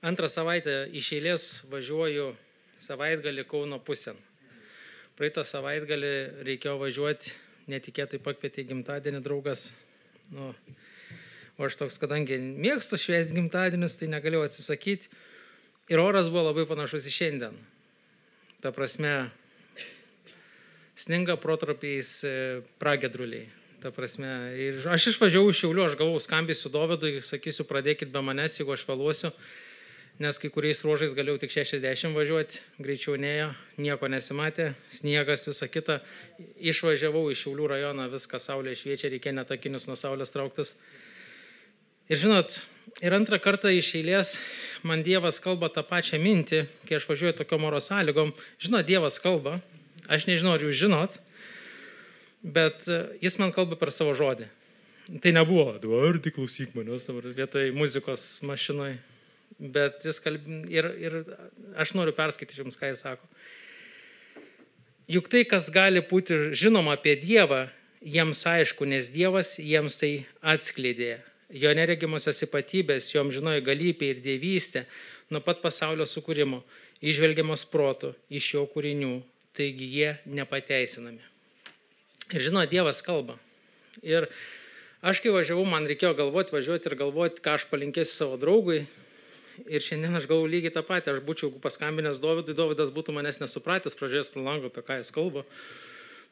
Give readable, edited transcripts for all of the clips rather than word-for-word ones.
Antrą savaitę iš eilės važiuoju savaitgalį Kauno pusėn. Praeitą savaitgalį reikėjo važiuoti, netikėtai pakvietė gimtadienį draugas. O aš toks, kadangi mėgstu švęsti gimtadienius, tai negalėjau atsisakyti. Ir oras buvo labai panašus į šiandien. Ta prasme, sninga protarpiais pragiedruliai. Ta prasme, ir aš išvažiavau iš Šiaulių, aš gavau skambinsiu Dovydui, sakysiu, pradėkit be manęs, jeigu aš vėluosiu, nes kai kuriais ruožais galėjau tik 60 važiuoti, greičiau nėjo, nieko nesimatė, sniegas, visa kita. Išvažiavau iš Šiaulių rajoną, viską saulė šviečia, reikia net akinius nuo saulės trauktis. Ir žinot, ir antrą kartą iš eilės man Dievas kalba tą pačią mintį, kai aš važiuoju tokiom oro sąlygom. Žinot, Dievas kalba, aš nežinau, ar jūs žinot, bet jis man kalba per savo žodį. Tai nebuvo, Eduardai, klausyk manęs dabar vietoj muzikos mašinoj. Bet jis ir aš noriu perskaityti jums, ką jis sako. Juk tai, kas gali būti žinoma apie Dievą, jiems aišku, nes Dievas jiems tai atskleidė. Jo neregimosios ypatybės, jo amžinoji galybė ir dievystė nuo pat pasaulio sukūrimo, įžvelgiamos protu iš jo kūrinių, taigi jie nepateisinami. Ir žinot, Dievas kalba. Ir aš kai važiavau, man reikėjo važiuoti ir galvoti, ką aš palinkėsiu savo draugui. Ir šiandien aš galvoju lygiai tą patį, aš būčiau paskambinęs Dovydui, Dovydas būtų manęs nesupratęs, pražiūrėjęs pro langą, apie ką jis kalba.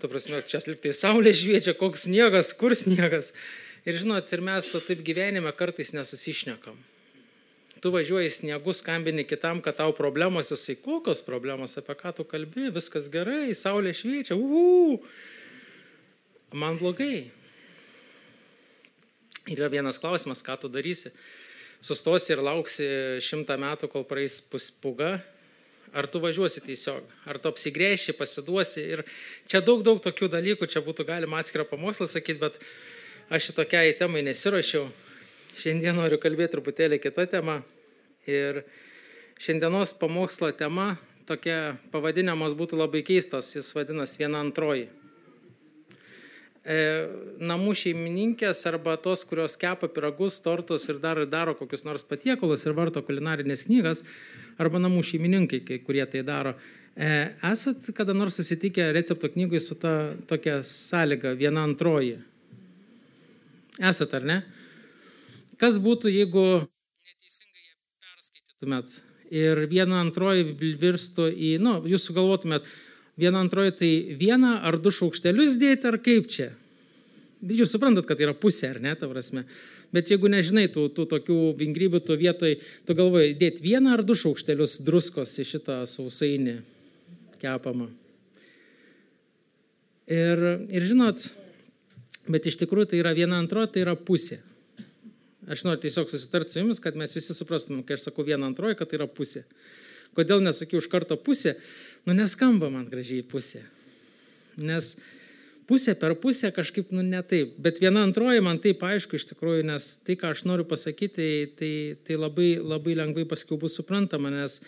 Ta prasme, čia liktai saulė šviečia, koks sniegas, kur sniegas. Ir žinot, ir mes taip gyvenime kartais nesusišnekam. Tu važiuoji sniegu, skambini kitam, kad tau problemos, jisai kokios problemos, apie ką tu kalbi, viskas gerai, saulė šviečia, man blogai. Ir yra vienas klausimas, ką tu darysi. Sustosi ir lauksi 100 metų, kol praeis pūga, ar tu važiuosi tiesiog, ar tu apsigręši, pasiduosi. Ir čia daug tokių dalykų, čia būtų galima atskirą pamokslą sakyti, bet aš šitokiai temai nesiruošiau. Šiandien noriu kalbėti truputėlį kitą temą. Ir šiandienos pamokslo tema, tokia pavadinimas būtų labai keistos, jis vadinas viena antroji. Namų šeimininkės arba tos, kurios kepa pyragus, tortus ir daro kokius nors patiekalus ir varto kulinarinės knygas, arba namų šeimininkai, kurie tai daro. Esat kada nors susitikę recepto knygui su ta tokia sąlyga, viena antroji? Esat, ar ne? Kas būtų, jeigu neteisingai ją perskaitytumėt ir viena antroji virstų į, jūs sugalvotumėt, viena antroji tai vieną ar 2 šaukštelius dėti, ar kaip čia? Jūs suprantat, kad tai yra pusė, ar ne, ta prasme. Bet jeigu nežinai tų tokių vingrybių, tu vietoj, tu galvoji, dėti 1 ar 2 šaukštelius druskos į šitą sausainį kepamą. Ir žinot, bet iš tikrųjų tai yra viena antroji, tai yra pusė. Aš noriu tiesiog susitarti su jumis, kad mes visi suprastumėm, kai aš sakau viena antroji, kad tai yra pusė. Kodėl nesakiau iš karto pusė? Neskamba man gražiai pusė. Nes pusė per pusę kažkaip, ne taip. Bet viena antroji man taip aišku iš tikrųjų, nes tai, ką aš noriu pasakyti, tai labai, labai lengvai paskiau bus suprantama, nes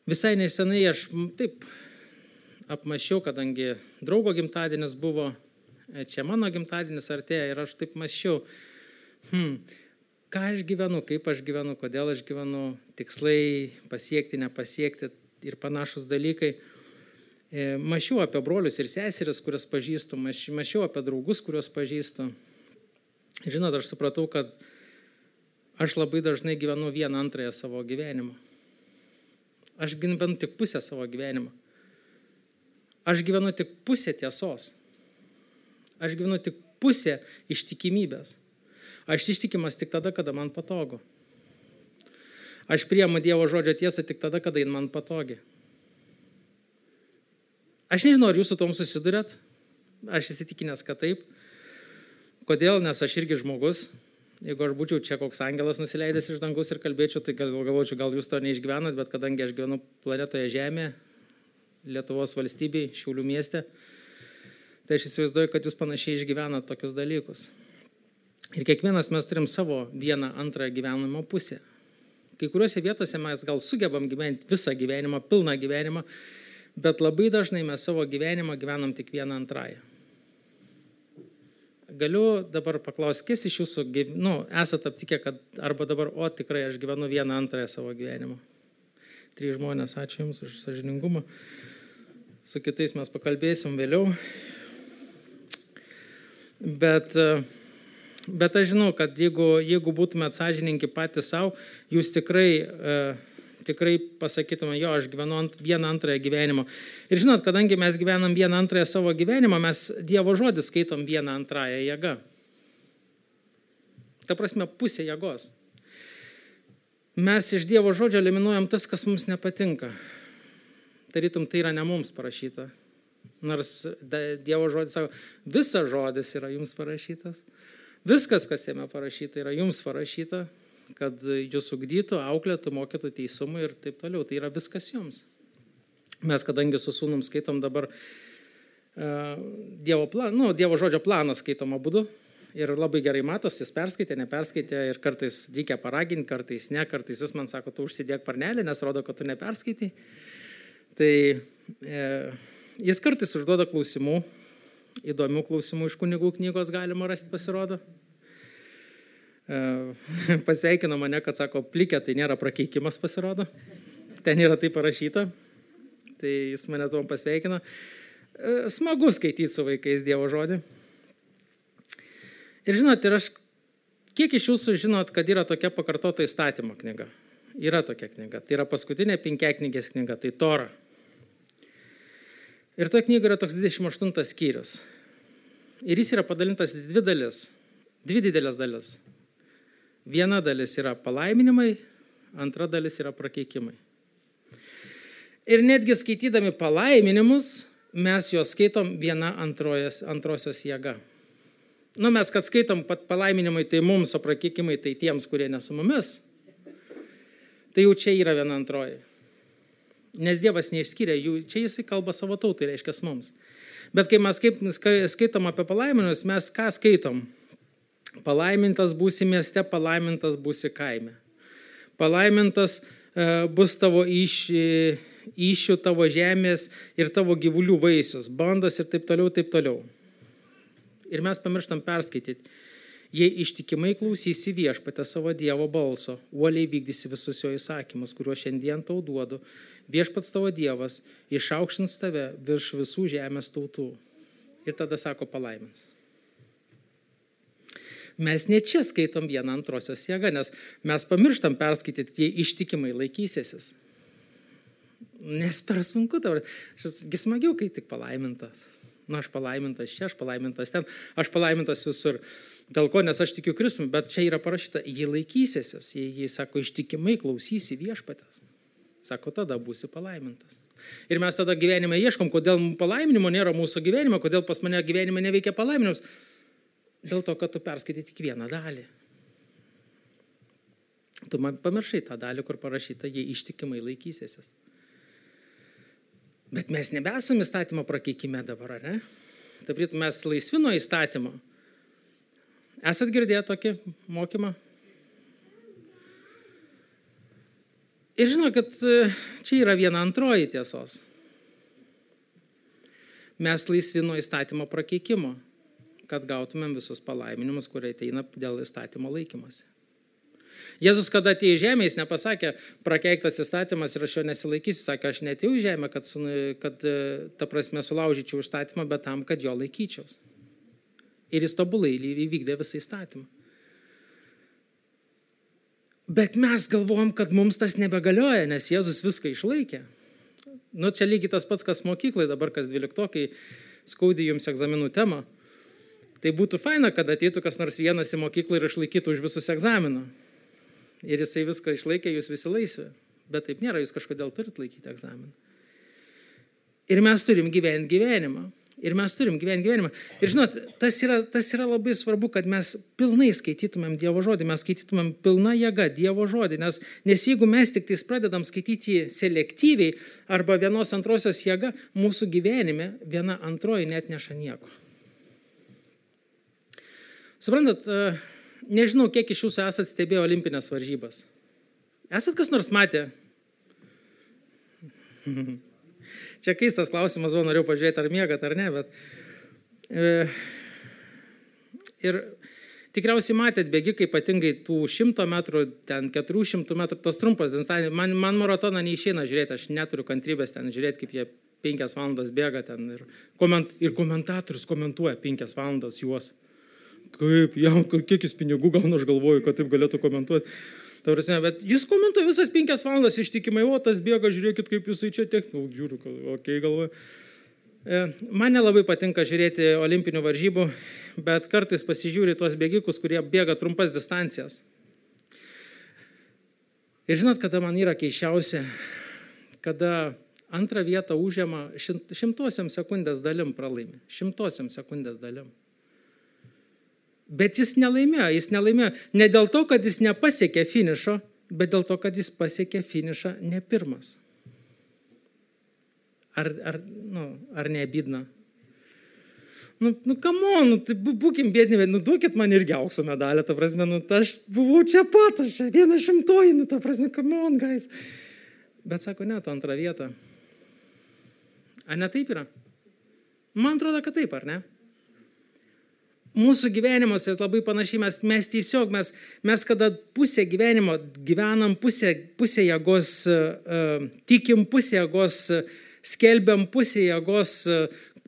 visai nesenai aš taip apmąsčiau, kadangi draugo gimtadienis buvo, čia mano gimtadienis artėja ir aš taip mąsčiau, ką aš gyvenu, kaip aš gyvenu, kodėl aš gyvenu, tikslai pasiekti, nepasiekti ir panašus dalykai. Mąsčiau apie brolius ir seseris, kurias pažįstu, mąsčiau apie draugus, kuriuos pažįstu. Žinot, aš supratau, kad aš labai dažnai gyvenu vieną antrąją savo gyvenimą. Aš gyvenu tik pusę savo gyvenimą. Aš gyvenu tik pusę tiesos. Aš gyvenu tik pusę ištikimybės. Aš ištikimas tik tada, kada man patogu. Aš priimu Dievo žodžio tiesą tik tada, kada jin man patogi. Aš nežinau, ar jūs su tom susidurėt. Aš įsitikinęs, kad taip. Kodėl? Nes aš irgi žmogus. Jeigu aš būčiau čia koks angelas nusileidęs iš dangus ir kalbėčiau, tai galvočiau, gal jūs to neišgyvenat, bet kadangi aš gyvenu planetoje Žemė, Lietuvos valstybėje, Šiaulių mieste, tai aš įsivaizduoju, kad jūs panašiai išgyvenat tokius dalykus. Ir kiekvienas mes turim savo vieną antrą gyvenimo pusę. Kai kuriuose vietose mes gal sugebam gyventi visą gyvenimą, pilną gyvenimą, bet labai dažnai mes savo gyvenimą gyvenam tik vieną antrąją. galiu dabar paklausti, kas iš jūsų, esate aptikę, kad arba dabar, tikrai aš gyvenu 1/2 savo gyvenimo. 3 žmonės, ačiū Jums už sąžiningumą. Su kitais mes pakalbėsim vėliau. Bet aš žinau, kad jeigu būtumėt sąžiningi patys savo, jūs tikrai pasakytume, aš gyvenu 1/2 gyvenimo. Ir žinot, kadangi mes gyvenam 1/2 savo gyvenimo, mes Dievo žodį skaitom 1/2 jėga. Ta prasme, pusė jėgos. Mes iš Dievo žodžio eliminuojam tas, kas mums nepatinka. Tarytum, tai yra ne mums parašyta. Nors Dievo žodis sako, visas žodis yra jums parašytas. Viskas, kas jame parašyta, yra jums parašyta, kad jūs ugdytų, auklėtų, mokytų teisumą ir taip toliau. Tai yra viskas jums. Mes, kadangi su sūnum skaitom dabar Dievo žodžio planą skaitom abudu ir labai gerai matos, jis perskaitė, neperskaitė ir kartais reikia paraginti, kartais ne, kartais jis man sako, tu užsidėk parnelį, nes rodo, kad tu neperskaitai. Tai jis kartais užduoda klausimų, įdomių klausimų iš kunigų knygos galima rasti, pasirodo. Pasveikino mane, kad sako, plikė, tai nėra prakeikimas, pasirodo. Ten yra tai parašyta. Tai jis mane tuom pasveikino. Smagu skaityti su vaikais Dievo žodį. Ir žinot, kiek iš jūsų žinot, kad yra tokia pakartota įstatymo knyga? Yra tokia knyga. Tai yra paskutinė 5-knygės knyga, tai Tora. Ir toje knygoje yra toks 28 skyrius. Ir jis yra padalintas į 2 dalis. 2 didelės dalis. Viena dalis yra palaiminimai, antra dalis yra prakeikimai. Ir netgi skaitydami palaiminimus, mes juos skaitom 1/2 jėga. Mes, kad skaitom pat palaiminimai, tai mums, o prakeikimai tai tiems, kurie ne su mumis, tai jau čia yra 1/2. Nes Dievas neišskyrė jų, čia jisai kalba savo tautai, reiškia mums. Bet kai mes skaitom apie palaiminimus, mes ką skaitom? Palaimintas būsi mieste, palaimintas būsi kaime. Palaimintas bus tavo iššių, tavo žemės ir tavo gyvulių vaisius, bandos ir taip toliau, taip toliau. Ir mes pamirštam perskaityti. Jei ištikimai klausysi viešpatę savo Dievo balso, uoliai vykdysi visus jo įsakymus, kuriuos šiandien tau duodu, viešpats tavo Dievas išaukštins tave virš visų žemės tautų. Ir tada sako palaimins. Mes ne čia skaitom 1/2 jėgą, nes mes pamirštam perskaityti, jei ištikimai laikysiesi. Nes per sunku tau. Šis smagiau, kai tik palaimintas. Aš palaimintas čia, aš palaimintas ten, aš palaimintas visur. Dėl ko, nes aš tikiu Kristumi, bet čia yra parašyta, jei laikysiesi, jei sako, ištikimai klausysi viešpatės. Sako, tada būsi palaimintas. Ir mes tada gyvenime ieškom, kodėl palaiminimo nėra mūsų gyvenime, kodėl pas mane gyvenime neveikia palaiminimus. Dėl to, kad tu perskaitai tik vieną dalį. Tu man pamiršai tą dalį, kur parašyta, jei ištikimai laikysiesi. Bet mes nebesam įstatymo prakeikime dabar, ar ne? Taip, mes laisvi nuo įstatymo. Esat girdėję tokį mokymą? Ir žinokit, čia yra 1/2 tiesos. Mes laisvi nuo įstatymo prakeikimo, kad gautumėm visus palaiminimus, kurie ateina dėl įstatymo laikymosi. Jėzus, kada atėjo į žemę, jis nepasakė, prakeiktas įstatymas ir aš jo nesilaikysiu, sakė, aš neatėjau į žemę, kad ta prasme sulaužyčiau įstatymą, bet tam, kad jo laikyčiaus. Ir jis tobulai įvykdė visą įstatymą. Bet mes galvojam, kad mums tas nebegalioja, nes Jėzus viską išlaikė. Čia lygiai tas pats, kas mokyklai, dabar kas 12-okai skaudė jums egzaminų temą. Tai būtų faina, kad ateitų kas nors vienas į mokyklą ir išlaikytų už visus egzaminą. Ir jisai viską išlaikė, jūs visi laisvi. Bet taip nėra, jūs kažkodėl turit laikyti egzaminą. Ir mes turim gyventi gyvenimą. Ir žinot, tas yra labai svarbu, kad mes pilnai skaitytumėm Dievo žodį, mes skaitytumėm pilna jėga Dievo žodį, nes jeigu mes tik tais pradedam skaityti jį selektyviai arba 1/2 jėga, mūsų gyvenime 1/2 net neša nieko. Suprantat, nežinau, kiek iš jūsų esat stebėję olimpinės varžybas. Esat kas nors matę? Čia keistas klausimas, norėjau pažiūrėti, ar miegat, ar ne, bet Ir tikriausiai matėt bėgikai, ypatingai tų 100 metrų, ten 400 metrų, tos trumpos distancijos. Man maratoną neišeina žiūrėti, aš neturiu kantrybės ten žiūrėti, kaip jie 5 valandas bėga ten. Ir komentatorius komentuoja 5 valandas juos. Kaip, jam, kiek jis pinigų gauna, aš galvoju, kad taip galėtų komentuoti. Bet jis komentuoja visas 5 valandas ištikimai, o tas bėga, žiūrėkit, kaip jisai čia žiūriu, okei, galvoju. Man nelabai patinka žiūrėti olimpinių varžybų, bet kartais pasižiūri tuos bėgikus, kurie bėga trumpas distancijas. Ir žinot, kada man yra keiščiausia, kada antrą vietą užima 100 sekundės dalim pralaimi. 100 sekundės dalim. Bet jis nelaimėjo ne dėl to, kad jis nepasiekė finišo, bet dėl to, kad jis pasiekė finišą ne pirmas. Ar neabydna? Come on, būkim bėdni, duokit man irgi aukso medalę, ta prasme, aš buvau čia pat, aš čia 100, ta prasme, come on, guys. Bet sako, ne, tu antrą vietą. Ar ne taip yra? Man atrodo, kad taip, ar ne? Mūsų gyvenimuose labai panašiai, mes kada pusę gyvenimo gyvenam, pusę jėgos tikim, pusę jėgos skelbiam, pusę jėgos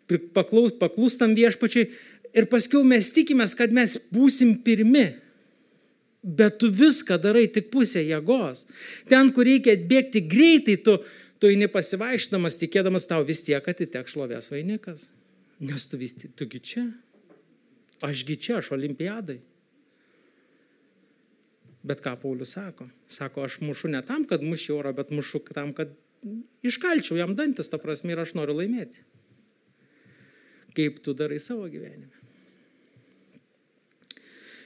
paklūstam viešpačiui ir paskiau mes tikimės, kad mes būsim pirmi. Bet tu viską darai tik pusę jėgos. Ten, kur reikia bėgti greitai, tu eini pasivaišdamas, tikėdamas tau vis tiek atiteks šlovės vainikas. Nes tugi čia. Ašgi čia, aš olimpiadai. Bet ką Paulius sako? Sako, aš mušu ne tam, kad mušiu orą, bet mušu tam, kad iškalčiau jam dantis, ta prasme, ir aš noriu laimėti. Kaip tu darai savo gyvenime.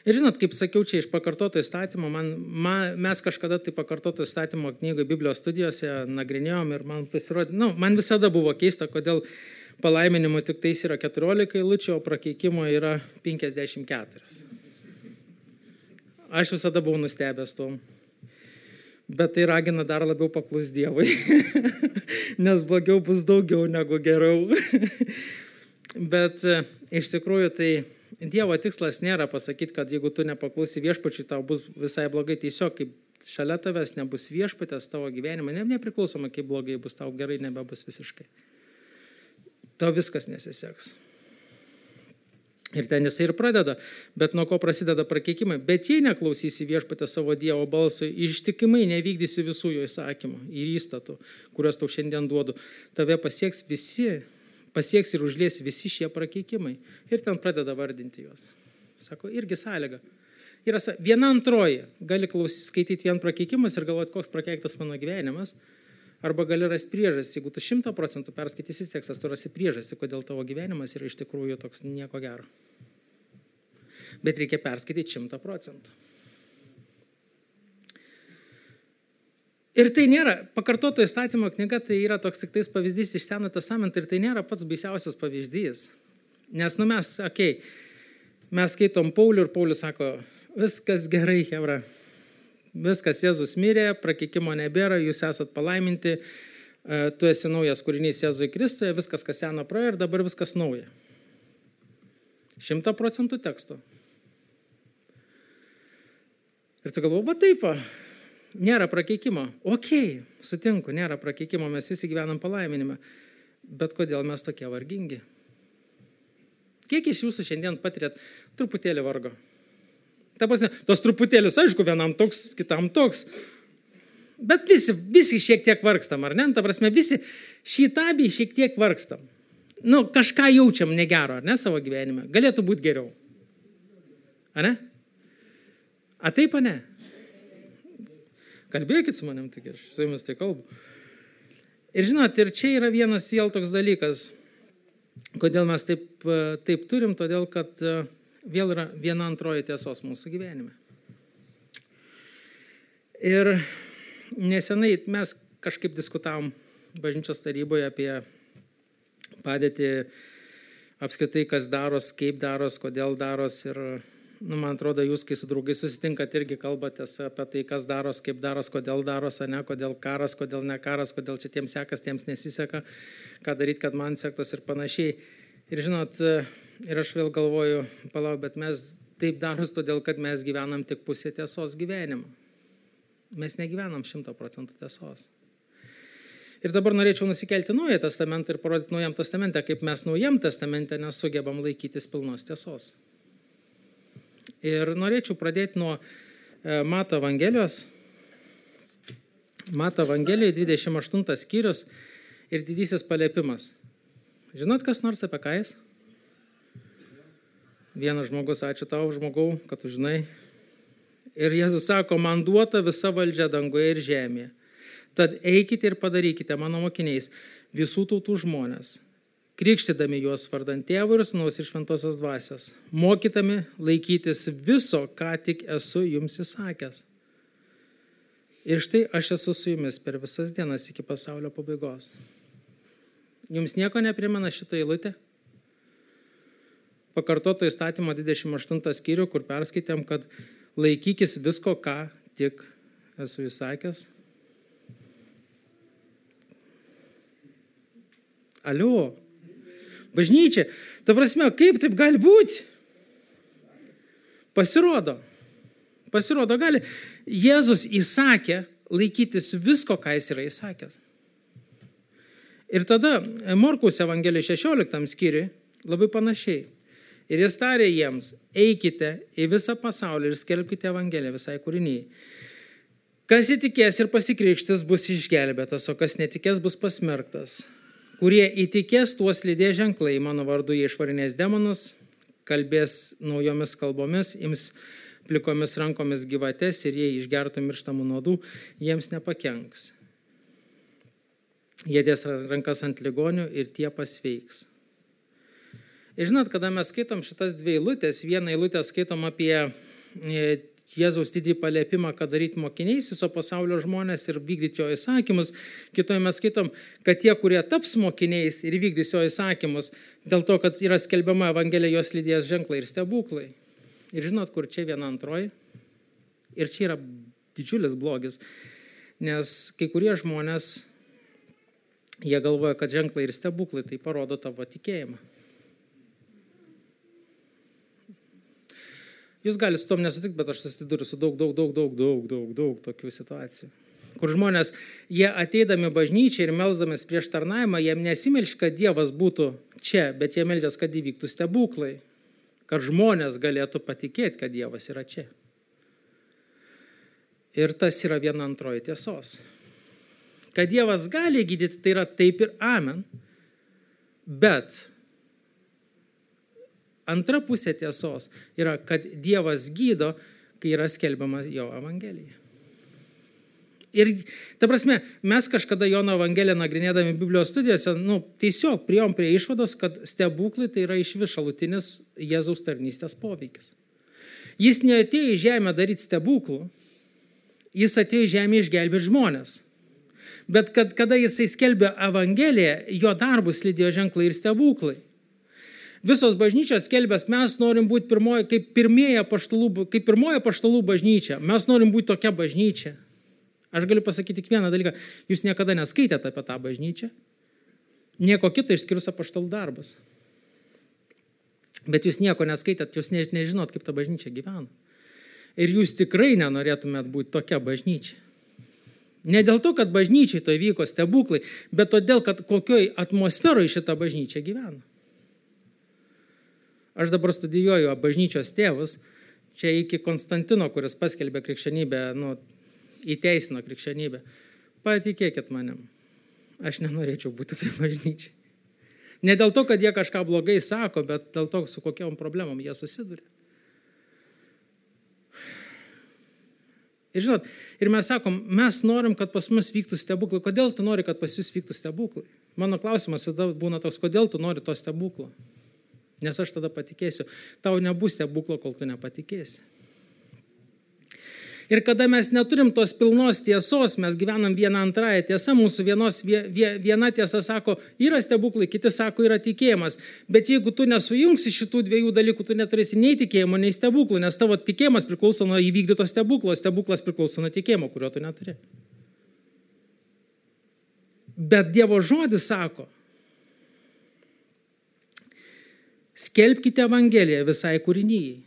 Ir žinot, kaip sakiau, čia iš pakartoto įstatymo, mes kažkada tai pakartoto įstatymo knygoje Biblijos studijose nagrinėjom ir man pasirodė, man visada buvo keista, kodėl palaiminimo tik tais yra 14 eilučių, o prakeikimo yra 54. Aš visada buvau nustebęs tom. Bet tai ragina dar labiau paklus Dievui. Nes blogiau bus daugiau negu geriau. Bet iš tikrųjų tai Dievo tikslas nėra pasakyti, kad jeigu tu nepaklusi viešpačiui, tau bus visai blogai. Tiesiog kaip šalia tavęs nebus viešpatės tavo gyvenime, nepriklausoma kaip blogai bus, tau gerai nebebus visiškai. Tau viskas nesiseks. Ir ten jisai ir pradeda, bet nuo ko prasideda prakeikimai. Bet jei neklausysi viešpatę savo Dievo balso, ištikimai nevykdysi visų jo įsakymų ir įstatų, kuriuos tau šiandien duodu, tave pasieks ir užlies visi šie prakeikimai. Ir ten pradeda vardinti juos. Sako, irgi sąlyga. Yra 1/2. Gali skaityti vien prakeikimus ir galvoti, koks prakeiktas mano gyvenimas. Arba gali rasti priežastį. Jeigu tu 100% perskaitysi tekstas, tu rasi priežastį, kodėl tavo gyvenimas yra iš tikrųjų toks nieko gero. Bet reikia perskaityti 100%. Ir tai nėra, pakartoto įstatymo knyga, tai yra toks tik tais pavyzdys iš Senojo testamento ir tai nėra pats baisiausias pavyzdys. Nes mes skaitom Paulių ir Paulius sako, viskas gerai, chebra. Viskas, Jėzus mirė, prakeikimo nebėra, jūs esat palaiminti, tu esi naujas kūrinys Jėzui Kristuje, viskas, kas seno praėjo ir dabar viskas nauja. 100% teksto. Ir tu galvoji, taip, nėra prakeikimo. Okei, sutinku, nėra prakeikimo, mes visi gyvenam palaiminime. Bet kodėl mes tokie vargingi? Kiek iš jūsų šiandien patirėt truputėlį vargo? Ta prasme, tos truputėlis, aišku, vienam toks, kitam toks. Bet visi šiek tiek vargstam, ar ne? Ta prasme, visi šitabiai šiek tiek vargstam. Kažką jaučiam negero, ar ne, savo gyvenime. Galėtų būti geriau. Ar ne? A taip, ar ne? Kalbėkit su manim, tik aš su jumis tai kalbu. Ir žinot, ir čia yra vienas vėl toks dalykas. Kodėl mes taip turim? Todėl, kad vėl yra 1/2 tiesos mūsų gyvenime. Ir nesenai mes kažkaip diskutavom bažnyčios taryboje apie padėtį apskritai, kas daros, kaip daros, kodėl daros. Ir man atrodo, jūs, kai su draugai susitinkat, irgi kalbatės apie tai, kas daros, kaip daros, kodėl daros, ne, kodėl karas, kodėl ne karas, kodėl čia tiems sekas, tiems nesiseka, ką daryti, kad man sektas ir panašiai. Ir žinot, ir aš vėl galvoju, bet mes taip daros todėl, kad mes gyvenam tik pusę tiesos gyvenimą. Mes negyvenam 100% tiesos. Ir dabar norėčiau nusikelti Naująjį testamentą ir parodyti Naujam testamente, kaip mes Naujam testamente nesugebam laikytis pilnos tiesos. Ir norėčiau pradėti nuo Mato Evangelijos. Mato Evangelijai 28 skyrius ir didysis paliepimas. Žinot, kas nors apie ką jis? Vienas žmogus, ačiū tau, žmogau, kad tu žinai. Ir Jėzus sako, man duota visa valdžia dangoje ir žemėje. Tad eikite ir padarykite mano mokiniais visų tautų žmonės, krikštydami juos vardant Tėvo ir Sūnaus ir Šventosios Dvasios, mokydami laikytis viso, ką tik esu jums įsakęs. Ir štai aš esu su jumis per visas dienas iki pasaulio pabaigos. Jums nieko neprimena šitą eilutę? Pakartoto įstatymo 28 skyrių, kur perskaitėm, kad laikykis visko, ką tik esu įsakęs. Alio, bažnyčia, ta prasme, kaip taip gali būti? Pasirodo gali. Jėzus įsakė laikytis visko, ką jis yra įsakęs. Ir tada Morkaus Evangelijos 16 skyriui labai panašiai. Ir jis tarė jiems, eikite į visą pasaulį ir skelbkite Evangeliją visai kūrinijai. Kas įtikės ir pasikrikštys bus išgelbėtas, o kas netikės bus pasmerktas. Kurie įtikės, tuos lydės ženklai, mano vardu jie išvarinės demonus, kalbės naujomis kalbomis, ims plikomis rankomis gyvates ir jei išgertų mirštamų nuodų, jiems nepakenks. Jie dės rankas ant ligonių ir tie pasveiks. Ir žinot, kada mes skaitom šitas dvi eilutės, vieną eilutę skaitom apie Jėzaus didį paliepimą, kad daryti mokiniais viso pasaulio žmonės ir vykdyti jo įsakymus. Kitoje mes skaitom, kad tie, kurie taps mokiniais ir vykdys jo įsakymus, dėl to, kad yra skelbiama Evangelija, jos lydės ženklai ir stebuklai. Ir žinot, kur čia viena antroji? Ir čia yra didžiulis blogis, nes kai kurie žmonės, jie galvoja, kad ženklai ir stebuklai tai parodo tavo tikėjimą. Jūs galite su tom nesutikti, bet aš susiduriu su daug tokių situacijų. Kur žmonės, jie ateidami bažnyčiai ir melsdamis prieš tarnavimą, jiem nesimelš, kad Dievas būtų čia, bet jie meldžias, kad įvyktų stebuklai, kad žmonės galėtų patikėti, kad Dievas yra čia. Ir tas yra viena antroji tiesos. Kad Dievas gali gydyti, tai yra taip ir amen, bet antra pusė tiesos yra, kad Dievas gydo, kai yra skelbiama jo Evangelija. Ir, ta prasme, mes kažkada Jono Evangeliją nagrinėdami Biblijos studijose, tiesiog priėjom prie išvados, kad stebuklai tai yra išvis šalutinis Jėzaus tarnystės poveikis. Jis neatėjo į žemę daryti stebuklų, jis atėjo į žemę išgelbėti žmonės. Bet kada jisai skelbė Evangeliją, jo darbus lydėjo ženklai ir stebuklai. Visos bažnyčios skelbės, mes norim būti kaip pirmoji apaštalų bažnyčia. Mes norim būti tokia bažnyčia. Aš galiu pasakyti tik vieną dalyką. Jūs niekada neskaitėte apie tą bažnyčią. Nieko kito išskyrus apaštalų darbus. Bet jūs nieko neskaitėt, jūs nežinot, kaip ta bažnyčia gyvena. Ir jūs tikrai nenorėtumėt būti tokia bažnyčia. Ne dėl to, kad bažnyčiai to vyko stebuklai, bet todėl, kad kokioj atmosferoje šita bažnyčia gyvena. Aš dabar studijuoju bažnyčios tėvus, čia iki Konstantino, kuris paskelbė krikščionybę, įteisino krikščionybę. Patikėkit manim, aš nenorėčiau būti tokia bažnyčia. Ne dėl to, kad jie kažką blogai sako, bet dėl to, su kokiom problemom jie susiduria. Ir žinot, ir mes sakom, mes norim, kad pas mus vyktų stebuklai. Kodėl tu nori, kad pas jūs vyktų stebuklai? Mano klausimas būna toks, kodėl tu nori to stebuklo? Nes aš tada patikėsiu. Tau nebus stebuklo, kol tu nepatikėsi. Ir kada mes neturim tos pilnos tiesos, mes gyvenam vieną antrąją tiesą, mūsų viena tiesa sako, yra stebuklai, kiti sako, yra tikėjimas. Bet jeigu tu nesujungsi šitų dviejų dalykų, tu neturėsi nei tikėjimo, nei stebuklų, nes tavo tikėjimas priklauso nuo įvykdyto stebuklo, stebuklas priklauso nuo tikėjimo, kurio tu neturi. Bet Dievo žodis sako, skelbkite Evangeliją visai kūrinijai.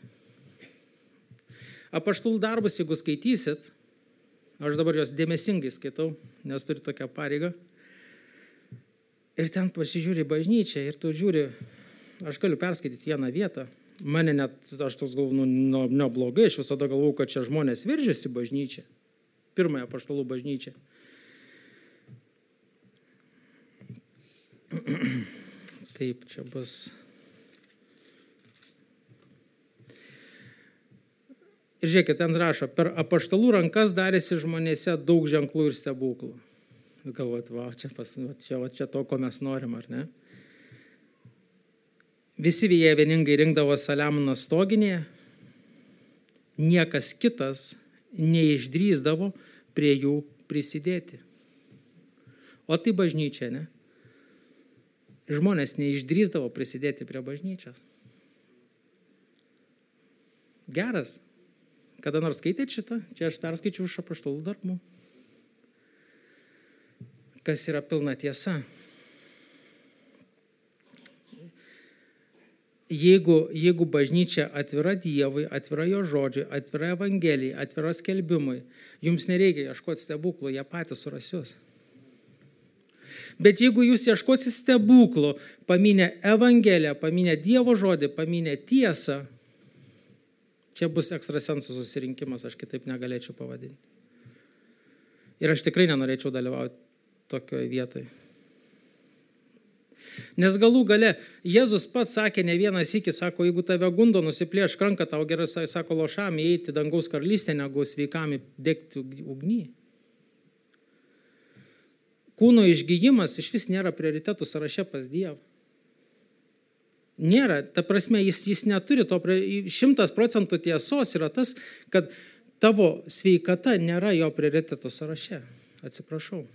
Apaštalų darbus, jeigu skaitysit, aš dabar jos dėmesingai skaitau, nes turiu tokią pareigą. Ir ten pasižiūri bažnyčią ir tu žiūri, aš galiu perskaityti vieną vietą. Mane net, aš toks galvoju, neblogai, aš visada galvoju, kad čia žmonės veržiasi bažnyčią. Pirmąją apaštalų bažnyčią. Taip, čia bus. Ir žiūrėkit, ten rašo, per apaštalų rankas darėsi žmonėse daug ženklų ir stebuklų. Galvot, čia to, ko mes norim, ar ne? Visi jie vieningai rinkdavo Saliamono stoginėje, niekas kitas neišdrįsdavo prie jų prisidėti. O tai bažnyčia, ne? Žmonės neišdrįsdavo prisidėti prie bažnyčios. Geras. Kada nors skaitėt šitą? Čia aš perskaičiau iš apaštalų darbų. Kas yra pilna tiesa. Jeigu bažnyčia atvira Dievui, atvira jo žodžiui, atvira Evangelijai, atvira skelbimui, jums nereikia ieškoti stebuklų, jie patys suras jūs. Bet jeigu jūs ieškosit stebuklų, paminę Evangeliją, paminę Dievo žodį, paminę tiesą, čia bus ekstrasensų susirinkimas, aš kitaip negalėčiau pavadinti. Ir aš tikrai nenorėčiau dalyvauti tokioje vietoje. Nes galų gale Jėzus pats sakė ne vieną sykį, sako, jeigu tave gundo nusiplėšk ranką, tau gerai, sako, lošam įeiti dangaus karalystę, negu sveikam degti ugny. Kūno išgyjimas iš vis nėra prioritetų sąraše pas Dievą. Nėra, ta prasme, jis neturi to, 100% tiesos yra tas, kad tavo sveikata nėra jo prioritetų sąraše. Atsiprašau.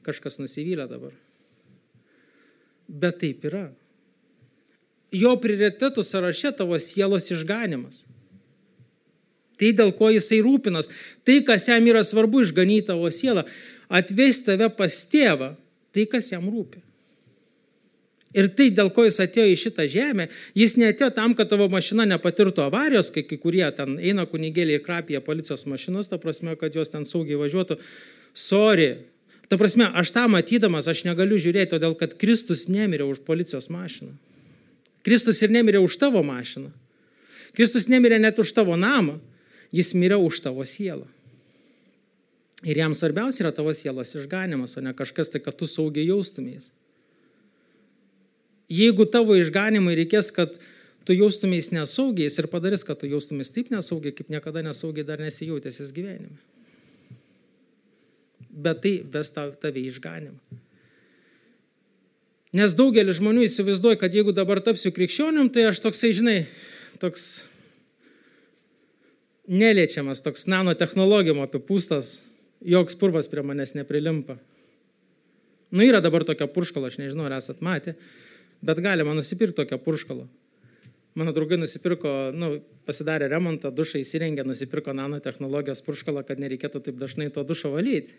Kažkas nusivylė dabar. Bet taip yra. Jo prioritetų sąraše tavo sielos išganimas. Tai, dėl ko jisai rūpinas. Tai, kas jam yra svarbu, išganyti tavo sielą. Atvesti tave pas tėvą. Tai, kas jam rūpi. Ir tai, dėl ko jis atėjo į šitą žemę, jis neatėjo tam, kad tavo mašina nepatirtų avarijos, kai kurie ten eina kunigėliai ir krapija policijos mašinos, ta prasme, kad jos ten saugiai važiuotų. Sorry. Ta prasme, aš tą matydamas, aš negaliu žiūrėti, todėl kad Kristus nemirė už policijos mašiną. Kristus ir nemirė už tavo mašiną. Kristus nemirė net už tavo namą, jis mirė už tavo sielą. Ir jam svarbiausia yra tavo sielos išganimas, o ne kažkas tai, kad tu saugiai jaustumės. Jeigu tavo išganimui reikės, kad tu jaustumės nesaugiais ir padarys, kad tu jaustumės taip nesaugiai, kaip niekada nesaugiai dar nesijautėsis gyvenime. Bet tai ves tave išganimą. Nes daugelis žmonių įsivaizduoja, kad jeigu dabar tapsiu krikščionim, tai aš toksai, žinai, toks neliečiamas, toks nanotechnologijom apipūstas, joks purvas prie manęs neprilimpa. Yra dabar tokia purškala, aš nežinau, ar esat matę, bet galima nusipirkti tokią purškalą. Mano draugai nusipirko, pasidarė remontą, dušą įsirengė, nusipirko nanotechnologijos purškalą, kad nereikėtų taip dažnai to dušo valyti.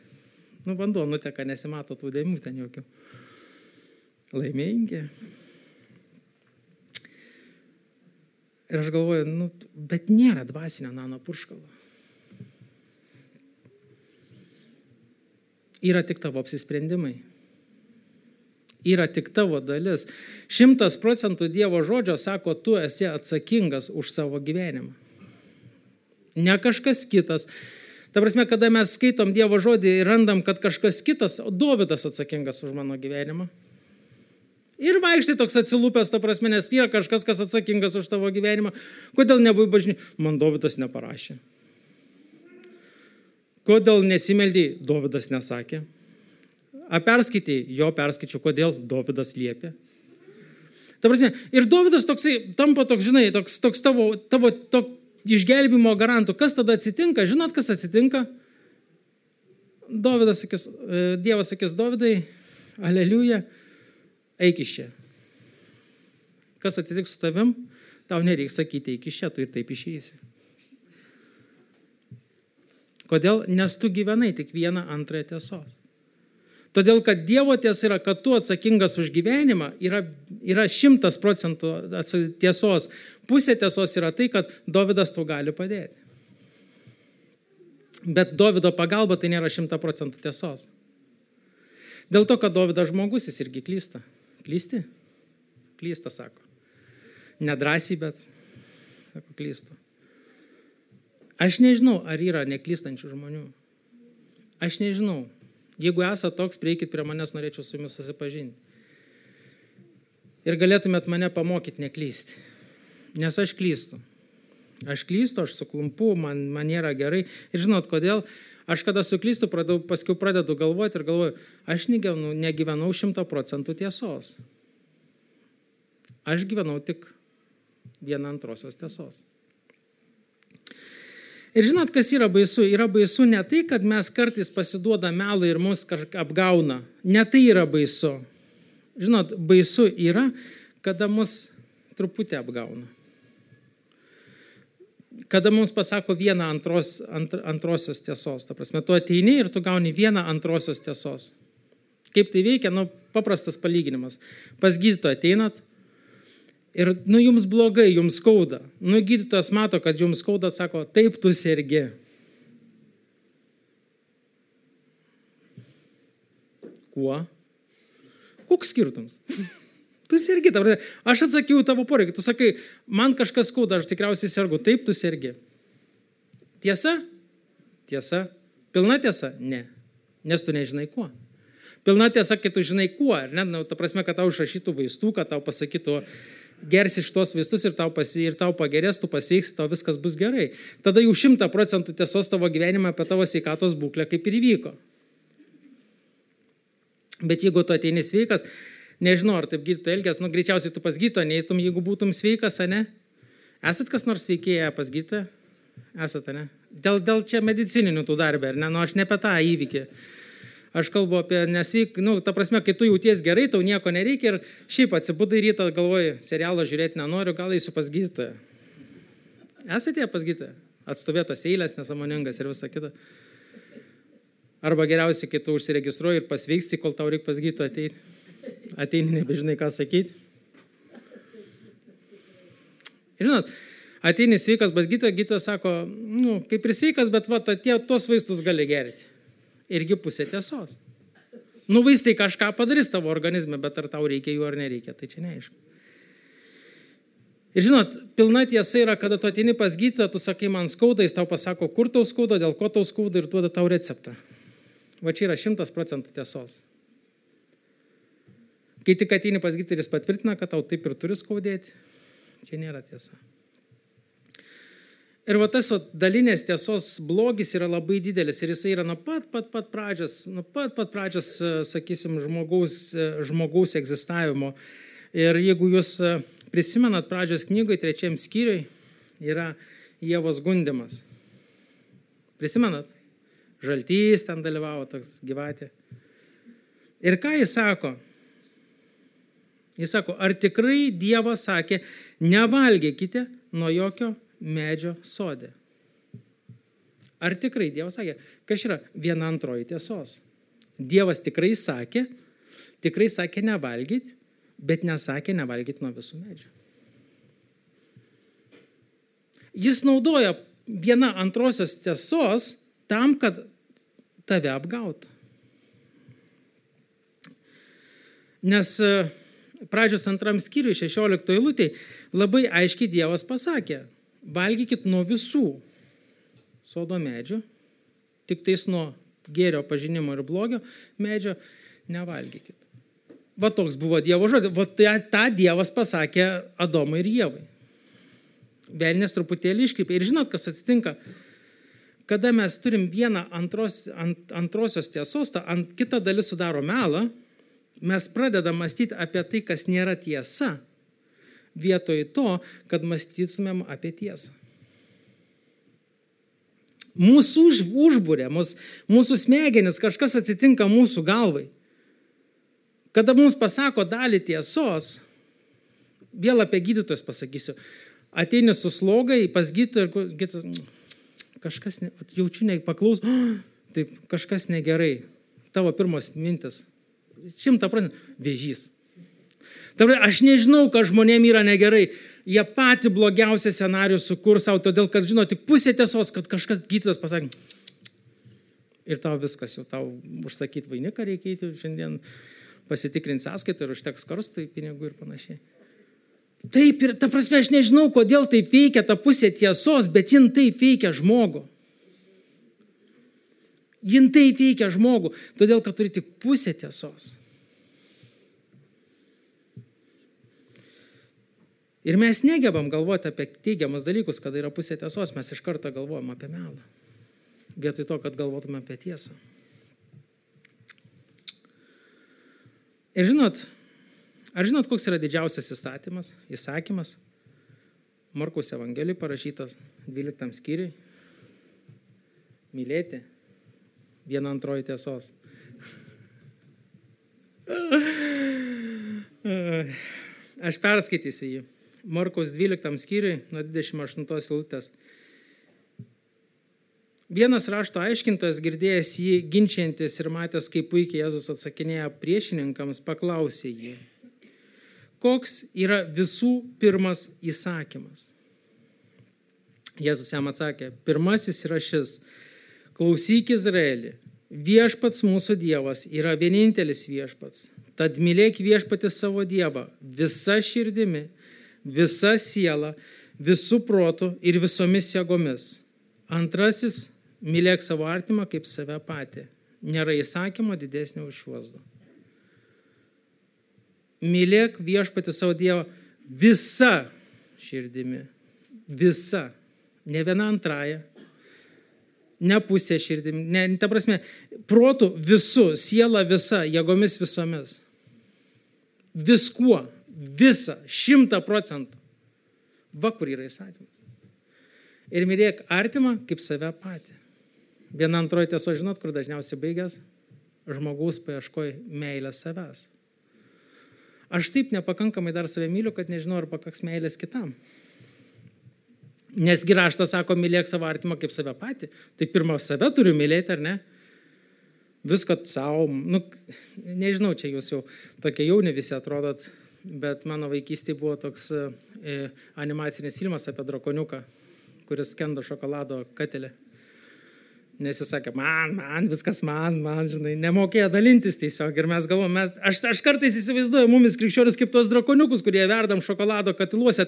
Vanduo nuteka, nesimato tų dėmių ten jokių. Laimingi. Ir aš galvoju, bet nėra dvasinio nano purškalo. Yra tik tavo apsisprendimai. Yra tik tavo dalis. 100% Dievo žodžio sako, tu esi atsakingas už savo gyvenimą. Ne kažkas kitas. Ta prasme, kada mes skaitom Dievo žodį ir randam, kad kažkas kitas, Dovydas atsakingas už mano gyvenimą. Ir vaikštai toks atsilūpęs, ta prasme, nes yra kažkas, kas atsakingas už tavo gyvenimą. Kodėl nebuvai bažnyčioj? Man Dovydas neparašė. Kodėl nesimeldėjai? Dovydas nesakė. A perskaitėjai? Jo perskaičiau. Kodėl? Dovydas liepė. Ta prasme, ir Dovydas toksai, tampa toks, žinai, toks tavo išgelbimo garantų. Kas tada atsitinka? Žinot, kas atsitinka? Dievas sakys, Dovydai, aleliuja, eik iš čia. Kas atsitiks su tavim? Tau nereiks sakyti, eik iš čia, tu ir taip išeisi. Kodėl? Nes tu gyvenai tik vieną antrąją tiesos. Todėl, kad Dievo tiesa yra, kad tu atsakingas už gyvenimą, yra 100% tiesos. Pusė tiesos yra tai, kad Dovydas tau gali padėti. Bet Dovydo pagalba tai nėra 100% tiesos. Dėl to, kad Dovydas žmogus, jis irgi klysta. Klysti? Klysta, sako. Nedrąsiai, bet, sako, klysta. Aš nežinau, ar yra neklystančių žmonių. Aš nežinau. Jeigu esate toks, prieikit prie manęs, norėčiau su jumis susipažinti. Ir galėtumėt mane pamokyti neklysti. Nes aš klystu. Aš klystu, aš suklumpu, man nėra gerai. Ir žinot, kodėl? Aš kada suklystu, paskui pradedu galvoti ir galvoju, aš negyvenau 100% tiesos. Aš gyvenau tik 1/2 tiesos. Ir žinot, kas yra baisu? Yra baisu ne tai, kad mes kartais pasiduoda melą ir mus kažką apgauna. Ne tai yra baisu. Žinot, baisu yra, kada mus truputį apgauna. Kada mums pasako 1/2 tiesos. Ta prasme, tu ateini ir tu gauni 1/2 tiesos. Kaip tai veikia? Paprastas palyginimas. Pas gydytoją ateinat ir, jums blogai, jums skauda. Gydytojas mato, kad jums skauda, sako, taip tu sergi. Kuo? Koks skirtumas? Tu sergi. Aš atsakiau tavo poreikį. Tu sakai, man kažkas skauda, aš tikriausiai sergu. Taip, tu sergi. Tiesa? Tiesa. Pilna tiesa? Ne. Nes tu nežinai kuo. Pilna tiesa, kai tu žinai kuo. Ne? Ta prasme, kad tau išrašytų vaistų, kad tau pasakytų, gersi šitos vaistus ir tau pagerės, tu pasveiksi, tau viskas bus gerai. Tada jau 100% tiesos tavo gyvenime apie tavo sveikatos būklę kaip ir įvyko. Bet jeigu tu ateini sveikas, nežinau, ar taip gydytojas elgės, greičiausiai tu pas gydytoją neitum, jeigu būtum sveikas, ne? Esat kas nors sveikėję pas gydytoją? Esate, ne? Dėl čia medicininių tų darbė, ar ne? Aš ne apie tą įvykį. Aš kalbu apie nesveik, ta prasme, kai tu jauties gerai, tau nieko nereikia ir šiaip atsibudai rytą, galvoji, serialą žiūrėti nenoriu, gal eisiu pas gydytoją. Esate pas gydytoją? Atstovėtas eilės, nesąmoningas ir visa kita. Arba geriausiai, kai tu užsiregistruoji ir pasveiksti, kol tau reikia pas gydytoją ateiti. Ateini, nebežinai, ką sakyti. Ir žinot, ateini sveikas pas gydytoją, gydytojas sako, kaip ir sveikas, bet tos vaistus gali gerti. Irgi pusė tiesos. Vaistai kažką padarys tavo organizme, bet ar tau reikia jų ar nereikia, tai čia neaišku. Ir žinot, pilna tiesa yra, kada tu ateini pas gydytoją, tu sakai, man skauda, jis tau pasako, kur tau skauda, dėl ko tau skauda ir duoda tau receptą. Va čia yra 100% tiesos. Kai tik ateini pas gydytoją, jis patvirtina, kad tau taip ir turi skaudėti, čia nėra tiesa. Ir tas dalinės tiesos blogis yra labai didelis ir jisai yra nuo pat pradžios, sakysim, žmogaus egzistavimo. Ir jeigu jūs prisimenat pradžios knygoje, 3 skyriui, yra Ievos gundymas. Prisimenat? Žaltys ten dalyvavo, toks gyvatė. Ir ką jis sako? Jis sako, ar tikrai Dievas sakė, nevalgykite nuo jokio medžio sode. Ar tikrai Dievas sakė? Kas yra 1/2 tiesos? Dievas tikrai sakė nevalgyti, bet nesakė nevalgyti nuo visų medžių. Jis naudoja 1/2 tiesos tam, kad tave apgautų. Nes pradžios 2 skyriui 16 eilutėj labai aiškiai Dievas pasakė, valgykit nuo visų sodo medžių, tik tais nuo gėrio pažinimo ir blogio medžio nevalgykit. Va toks buvo Dievo žodis. Va tą Dievas pasakė Adomui ir Ievai. Velnias truputėlį iškreipė. Ir žinot, kas atsitinka? Kada mes turim 1/2 tiesos, kita dalis sudaro melą, mes pradedam mąstyti apie tai, kas nėra tiesa, vietoj to, kad mąstytumėm apie tiesą. Mūsų užbūrė, mūsų smegenis, kažkas atsitinka mūsų galvai. Kada mums pasako dalį tiesos, vėl apie gydytojus pasakysiu, ateini su slogai pas gydytoją ir kažkas, jaučiu, paklaus, taip, kažkas negerai. tavo pirmos mintis? 100% vėžys. Aš nežinau, kad žmonėm yra negerai. Jie patį blogiausią scenarijų sukurs savo, todėl, kad žino tik pusė tiesos, kad kažkas gydytojas pasakė. Ir tau viskas, jau tau užsakyti vainiką reikėti, šiandien pasitikrinti sąskaitą ir užteks karstai pinigų ir panašiai. Taip ir, ta prasme, aš nežinau, kodėl taip veikia ta pusė tiesos, bet jin taip veikia žmogų. Jin taip veikia žmogų, todėl, kad turi tik pusę tiesos. Ir mes negebam galvoti apie teigiamus dalykus, kada yra pusė tiesos, mes iš karto galvojam apie melą. Vietoj to, kad galvotume apie tiesą. Ir ar žinot, koks yra didžiausias įsakymas? Markaus Evangelijai parašytas 12 skyriui. Mylėti 1/2 tiesos. Aš perskaitysiu jį. Markaus 12 skyriui, nuo 28 eilutės. Vienas rašto aiškintojas, girdėjęs jį ginčiantis ir matęs, kaip puikiai Jėzus atsakinėja priešininkams, paklausė jį, koks yra visų pirmas įsakymas. Jėzus jam atsakė, pirmasis yra šis, klausyk Izraelį, viešpats mūsų Dievas yra vienintelis viešpats, tad mylėk viešpatį savo Dievą visa širdimi, visa siela, visų protų ir visomis jėgomis. Antrasis, mylėk savo artimą kaip save patį. Nėra įsakymo didesnio už šiuos du. Mylėk viešpatį savo Dievą visa širdimi. Visa. Ne viena antraja. Ne pusė širdimi. Ne, ta prasme, protų visų, siela visa, jėgomis visomis. Viskuo. Visa. 100%. Va, kur yra įsakymas. Ir mylėk artimą kaip save patį. 1/2 tiesos, žinot, kur dažniausiai baigęs? Žmogaus paieškoj meilės savęs. Aš taip nepakankamai dar save myliu, kad nežinau, ar pakaks meilės kitam. Nesgi raštas sako, mylėk savo artimą kaip save patį. Tai pirmą save turiu mylėti, ar ne? Viską savo, nežinau, čia jūs jau tokie jauni visi atrodot, bet mano vaikystėje buvo toks animacinis filmas apie drakoniuką, kuris skendo šokolado katelę. Nes jis sakė, man, viskas man, žinai, nemokėjo dalintis tiesiog. Ir mes galvom, aš kartais įsivaizduoju mumis krikščionis kaip tos drakoniukus, kurie verdam šokolado katiluose.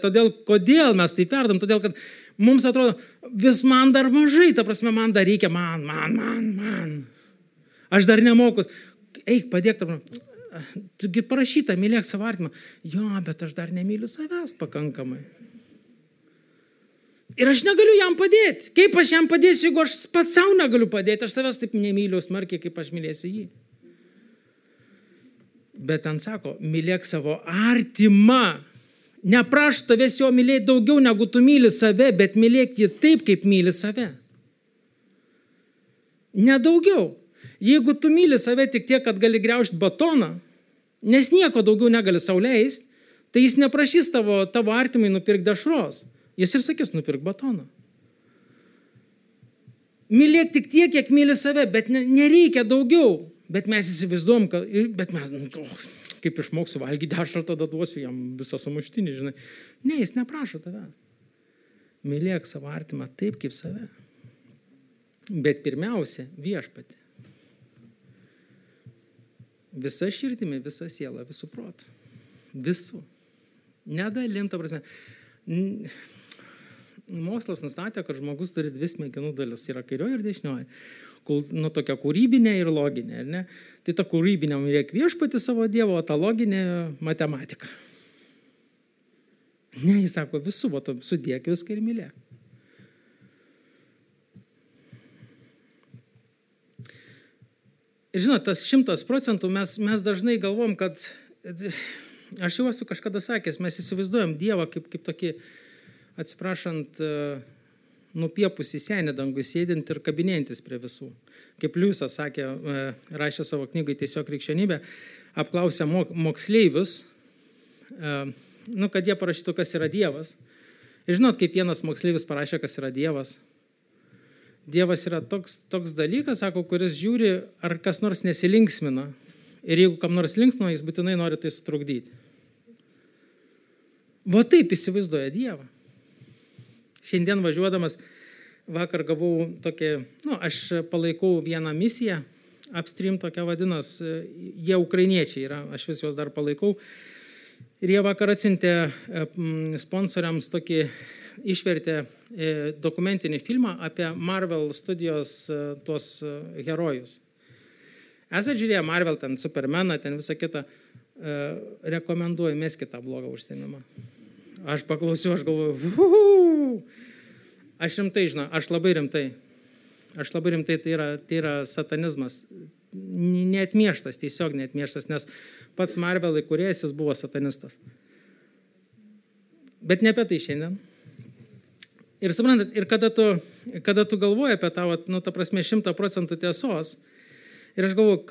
Kodėl mes taip verdam? Todėl, kad mums atrodo, vis man dar mažai, ta prasme, man dar reikia, man. Aš dar nemoku. Eik, padėk tam. Tugi parašyta, mylėk savo artimą. Jo, bet aš dar nemyliu savęs pakankamai. Ir aš negaliu jam padėti. Kaip aš jam padėsiu, jeigu aš pats savo negaliu padėti? Aš savęs taip nemyliu smarkiai, kaip aš mylėsiu jį. Bet ten sako, mylėk savo artimą. Neprašau tavęs jo mylėti daugiau, negu tu myli save, bet mylėk jį taip, kaip myli save. Nedaugiau. Jeigu tu myli save tik tiek, kad gali griaužti batoną, nes nieko daugiau negali sau leisti, tai jis neprašys tavo artimai nupirkti dešros. Jis ir sakys, nupirk batoną. Mylėk tik tiek, kiek myli save, bet nereikia daugiau. Bet mes įsivaizduom, bet mes, kaip išmoksiu valgyti dešrą, tada duosiu jam visą sumuštinį, žinai. Ne, jis neprašo tavęs. Mylėk savo artimą taip, kaip save. Bet pirmiausia, viešpatį. Visa širdimi, visa siela, visų protų. Visų. Nedalim, ta prasme. Mokslas nustatė, kad žmogus turi 2 smegenų dalis, yra kairioji ir dešinioji. Tokia kūrybinė ir loginė. Ne? Tai ta kūrybinė mylėk viešpatį savo Dievo, o ta loginė matematika. Ne, jis sako, visų, sudėk viską ir mylėk. Ir žinot, tas 100% mes dažnai galvom, kad, aš jau esu kažkada sakęs, mes įsivaizduojam Dievą kaip tokį, atsiprašant, nupiepusi senį dangų sėdint ir kabinėjantis prie visų. Kaip Liujisas sakė, rašė savo knygai Tiesiog krikščionybė, apklausė moksleivius, kad jie parašytų, kas yra Dievas. Ir žinot, kaip vienas moksleivis parašė, kas yra Dievas. Dievas yra toks dalykas, sako, kuris žiūri, ar kas nors nesilinksmina. Ir jeigu kam nors linksmina, jis būtinai nori tai sutrukdyti. Va taip įsivaizduoja Dievą. Šiandien važiuodamas, vakar gavau tokį, aš palaikau vieną misiją, Upstream tokia vadinas, jie ukrainiečiai yra, aš vis juos dar palaikau. Ir jie vakar atsiuntė sponsoriams tokį, išvertė dokumentinį filmą apie Marvel studijos tuos herojus. Esate žiūrėję Marvel, ten Supermaną, ten visą kitą, rekomenduoju, meskite tą blogą užsienimą. Aš paklausiau, aš galvoju, aš rimtai, žinau, aš labai rimtai, tai yra satanizmas, neatmieštas, tiesiog neatmieštas, nes pats Marvel įkūrėjas, jis buvo satanistas. Bet ne apie tai šiandien. Ir suprantat, ir kada tu galvoji apie tą, ta prasme, 100% tiesos, ir aš galvoju,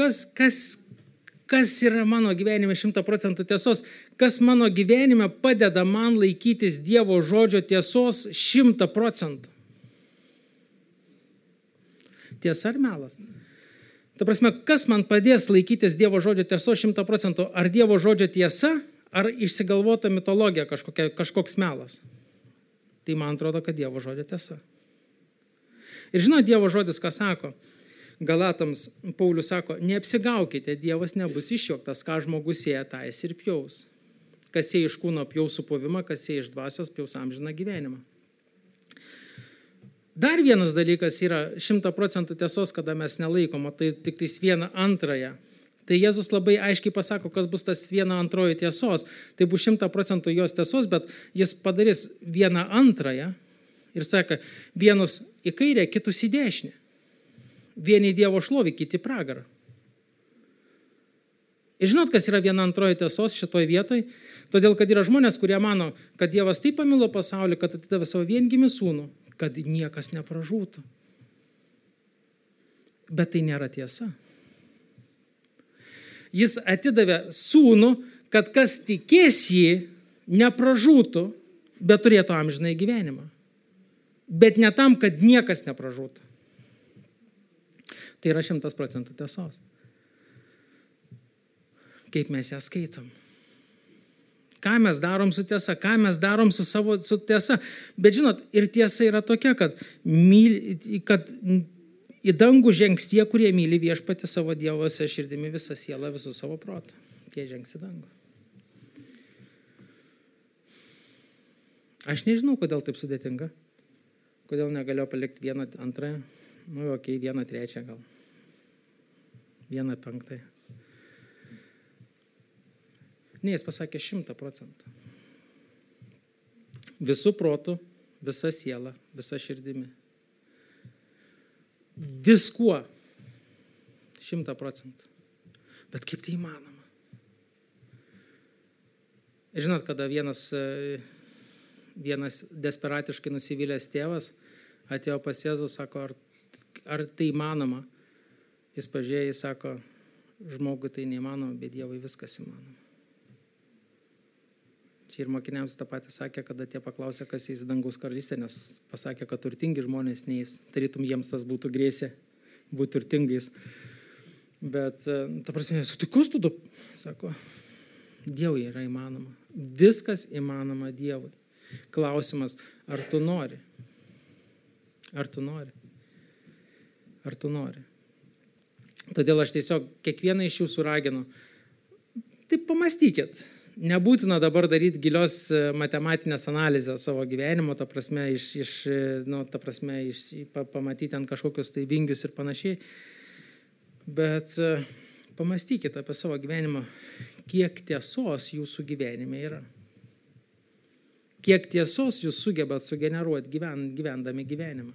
kas yra mano gyvenime 100% tiesos, kas mano gyvenime padeda man laikytis Dievo žodžio tiesos 100%. Tiesa ar melas? Ta prasme, kas man padės laikytis Dievo žodžio tiesos 100%? Ar Dievo žodžio tiesa, ar išsigalvota mitologija kažkoks melas? Tai man atrodo, kad Dievo žodžio tiesa. Ir žinot, Dievo žodis ką sako? Galatams Paulius sako, neapsigaukite, Dievas nebus išjuoktas, ką žmogus sėja, tą jis ir pjaus. Kas sėja iš kūno pjaus supovimą, kas sėja iš dvasios pjaus amžiną gyvenimą. Dar vienas dalykas yra 100% tiesos, kada mes nelaikom, tai tik tais 1/2. Tai Jėzus labai aiškiai pasako, kas bus tas 1/2 tiesos. Tai bus 100% jos tiesos, bet jis padarys 1/2 ir sako, vienus į kairę, kitus į dešinę. Vieni Dievo šlovį, kiti pragarą. Ir žinot, kas yra 1/2 tiesos šitoj vietoj? Todėl, kad yra žmonės, kurie mano, kad Dievas taip pamilo pasaulį, kad atidavė savo viengimį sūnų, kad niekas nepražūtų. Bet tai nėra tiesa. Jis atidavė sūnų, kad kas tikės jį, nepražūtų, bet turėtų amžinąjį gyvenimą. Bet ne tam, kad niekas nepražūtų. Tai yra 100% tiesos. Kaip mes ją skaitom. Ką mes darom su tiesa, ką mes darom su tiesa. Bet žinot, ir tiesa yra tokia, kad į dangų žengs tie, kurie myli viešpatį savo Dievose širdimi visą sielą, visų savo protą. Tie žengs į dangų. Aš nežinau, kodėl taip sudėtinga. Kodėl negaliu palikti 1/2. 1/3 gal. 1/5. Ne, jis pasakė 100%. Visų protų, visa siela, visa širdimi. Viskuo 100%. Bet kaip tai įmanoma? Žinot, kada vienas desperatiškai nusivylęs tėvas atėjo pas Jėzų, sako, ar tai įmanoma? Jis pažiūrėjo, jis sako, žmogui tai neįmanoma, bet Dievui viskas įmanoma. Čia ir mokiniams tą patį sakė, kada tie paklausė, kas eis į dangaus karalystę, nes pasakė, kad turtingi žmonės neis. Tarytum jiems tas būtų grėsė būti turtingais. Bet, ta prasme, sutikus tu, sako, Dievui yra įmanoma. Viskas įmanoma Dievui. Klausimas, ar tu nori? Ar tu nori? Ar tu nori? Todėl aš tiesiog kiekvieną iš jūsų raginu. Tai pamastykit. Nebūtina dabar daryti gilios matematinės analizės savo gyvenimo, ta prasme, pamatyti ant kažkokius tai vingius ir panašiai. Bet pamastykite apie savo gyvenimą, kiek tiesos jūsų gyvenime yra. Kiek tiesos jūs sugebat sugeneruoti gyvendami gyvenimą.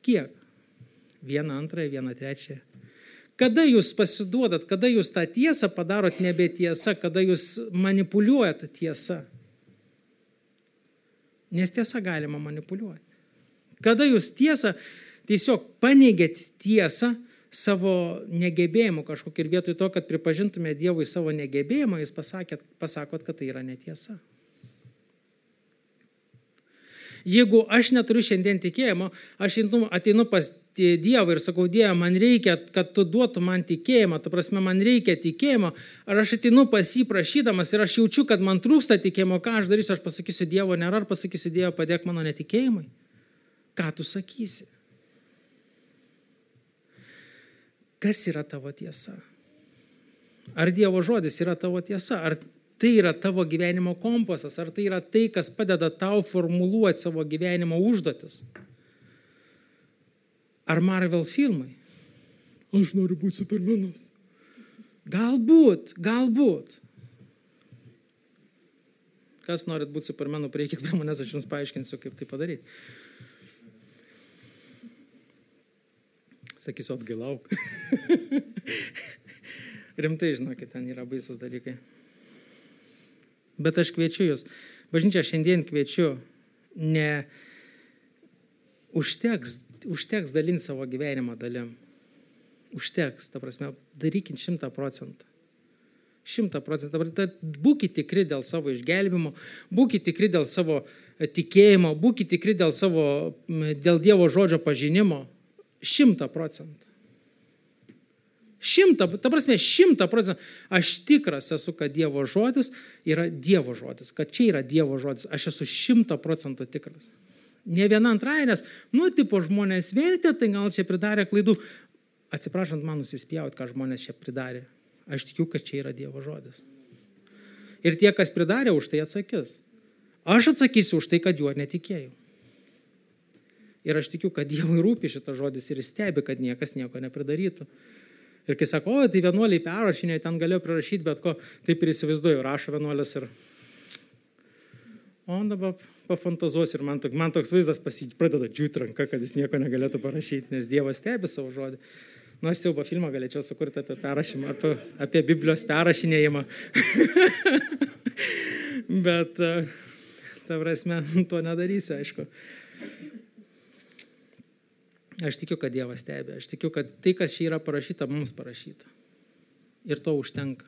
Kiek? 1/2, 1/3. Kada jūs pasiduodat, kada jūs tą tiesą padarot nebe tiesa, kada jūs manipuliuojat tiesą. Nes tiesą galima manipuliuoti. Kada jūs tiesą tiesiog paneigėt tiesą savo negebėjimu kažkokį ir vietoj to, kad pripažintume Dievui savo negebėjimą, jūs pasakot, kad tai yra netiesa. Jeigu aš neturiu šiandien tikėjimo, aš ateinu pas Dievą ir sakau, Dieve, man reikia, kad tu duotum man tikėjimą, ta prasme, man reikia tikėjimo, ar aš ateinu pas jį prašydamas ir aš jaučiu, kad man trūksta tikėjimo, ką aš darysiu, aš pasakysiu Dievo nėra, ar pasakysiu Dievo, padėk mano netikėjimui. Ką tu sakysi? Kas yra tavo tiesa? Ar Dievo žodis yra tavo tiesa? Ar tai yra tavo gyvenimo kompasas? Ar tai yra tai, kas padeda tau formuluoti savo gyvenimo užduotis? Ar Marvel filmai? Aš noriu būti Supermanas. Galbūt. Kas norit būti Supermanu, prieikit prie manęs, aš jums paaiškinsiu, kaip tai padaryti. Sakysiu, atgailauk. Rimtai, žinokit, ten yra baisus dalykai. Bet aš kviečiu jūs. Bažnyčia šiandien kviečiu, ne užteks dalinti savo gyvenimą dalim. Užteks, ta prasme, darykit 100%. 100%. Būkite tikri dėl savo išgelbimo, būkite tikri dėl savo tikėjimo, būkite tikri dėl Dievo žodžio pažinimo. 100%. 100%. Aš tikras esu, kad Dievo žodis yra Dievo žodis, kad čia yra Dievo žodis. Aš esu 100% tikras. Ne viena antraja, nes, tipo žmonės vertė, tai gal čia pridarė klaidų. Atsiprašant, man nusispjauti, ką žmonės čia pridarė. Aš tikiu, kad čia yra Dievo žodis. Ir tie, kas pridarė, už tai atsakys. Aš atsakysiu už tai, kad juo netikėjau. Ir aš tikiu, kad Dievui rūpi šitas žodis ir jis stebi, kad niekas nieko nepridarytų. Ir kai sako, tai vienuoliai perrašinė, ten galėjo prirašyti, bet ko, taip ir įsivaizduoju, rašo vienuolis ir... O dabar pafantazuos ir man toks vaizdas pradeda džiūti ranka, kad jis nieko negalėtų parašyti, nes Dievas stebi savo žodį. Aš siaubo filmą galėčiau sukurti apie perrašymą, apie Biblijos perrašinėjimą. Bet, ta prasme, to nedarysi, aišku. Aš tikiu, kad Dievas stebi. Aš tikiu, kad tai, kas čia yra parašyta, mums parašyta. Ir to užtenka.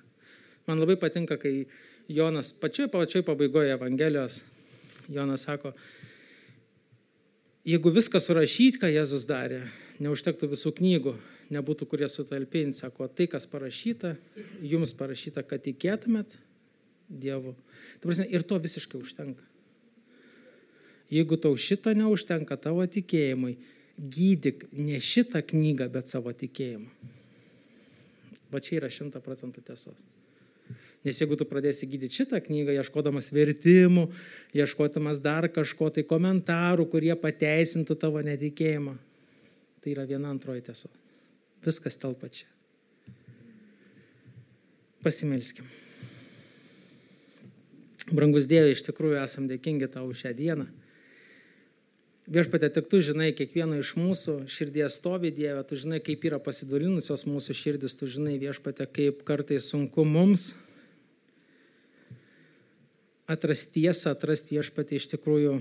Man labai patinka, kai Jonas pačioj pabaigoje Evangelijos, Jonas sako, jeigu viską surašyti, ką Jėzus darė, neužtektų visų knygų, nebūtų kurie sutalpinti, sako, tai, kas parašyta, jums parašyta, kad tikėtumėt Dievu. Ir to visiškai užtenka. Jeigu tau šito neužtenka tavo tikėjimui, gydyk ne šitą knygą, bet savo tikėjimą. Va čia yra 100% tiesos. Nes jeigu tu pradėsi gydyti šitą knygą, ieškodamas vertimų, ieškodamas dar kažko, tai komentarų, kurie pateisintų tavo netikėjimą, tai yra viena antroji tiesos. Viskas telpa čia. Pasimelskim. Brangus Dieve, iš tikrųjų esam dėkingi tau už šią dieną. Viešpatie, tik tu žinai, kiekvieno iš mūsų širdies stovi, Dieve, tu žinai, kaip yra pasidalinusios mūsų širdis, tu žinai, Viešpatie, kaip kartais sunku mums atrasti tiesą, atrasti, Viešpatie, iš tikrųjų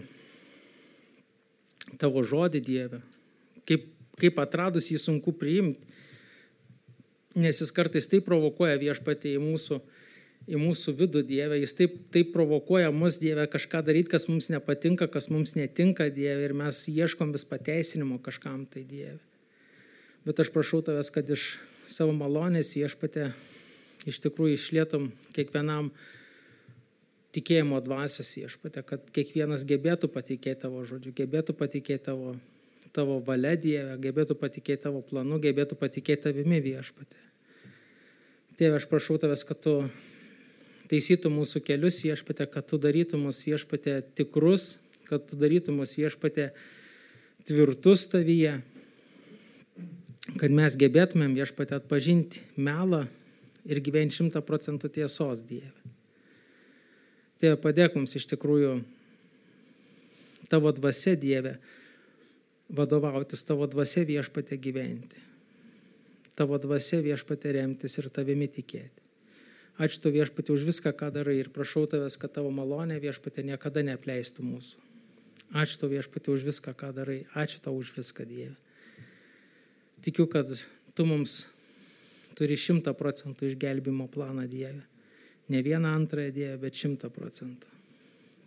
tavo žodį, Dieve. Kaip atradus jį sunku priimti, nes jis kartais taip provokuoja, Viešpatie, į mūsų vidų, Dieve, jis taip provokuoja mus, Dieve, kažką daryti, kas mums nepatinka, kas mums netinka, Dieve, ir mes ieškom vis pateisinimo kažkam, tai Dieve. Bet aš prašau tavęs, kad iš savo malonės, Viešpatie, iš tikrųjų išlietum kiekvienam tikėjimo dvasios, Viešpatie, kad kiekvienas gebėtų patikėti tavo žodžiu, gebėtų patikėti tavo valia, Dieve, gebėtų patikėti tavo planu, gebėtų patikėti tavimi, Viešpatie. Tėve, aš prašau tavęs, kad tu taisytų mūsų kelius, Viešpatie, kad tu darytum mus, Viešpatie, tikrus, kad tu darytum mus, Viešpatie, tvirtus tavyje, kad mes gebėtumėm, Viešpatie, atpažinti melą ir gyventi 100% tiesos, Dieve. Tėve, padėk mums iš tikrųjų tavo dvasia, Dieve, vadovautis, tavo dvasia, Viešpatie, gyventi. Tavo dvasia, Viešpatie, remtis ir tavimi tikėti. Ačiū tau, Viešpatie, už viską, ką darai, ir prašau tavęs, kad tavo malonė, Viešpatie, niekada neapleistų mūsų. Ačiū tau, Viešpatie, už viską, ką darai. Ačiū tau už viską, Dieve. Tikiu, kad tu mums turi 100% išgelbimo planą, Dieve. Ne vieną antrąją, Dieve, bet 100%.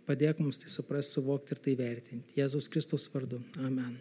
padėk mums tai suprasti, suvokti ir tai vertinti. Jėzaus Kristaus vardu. Amen.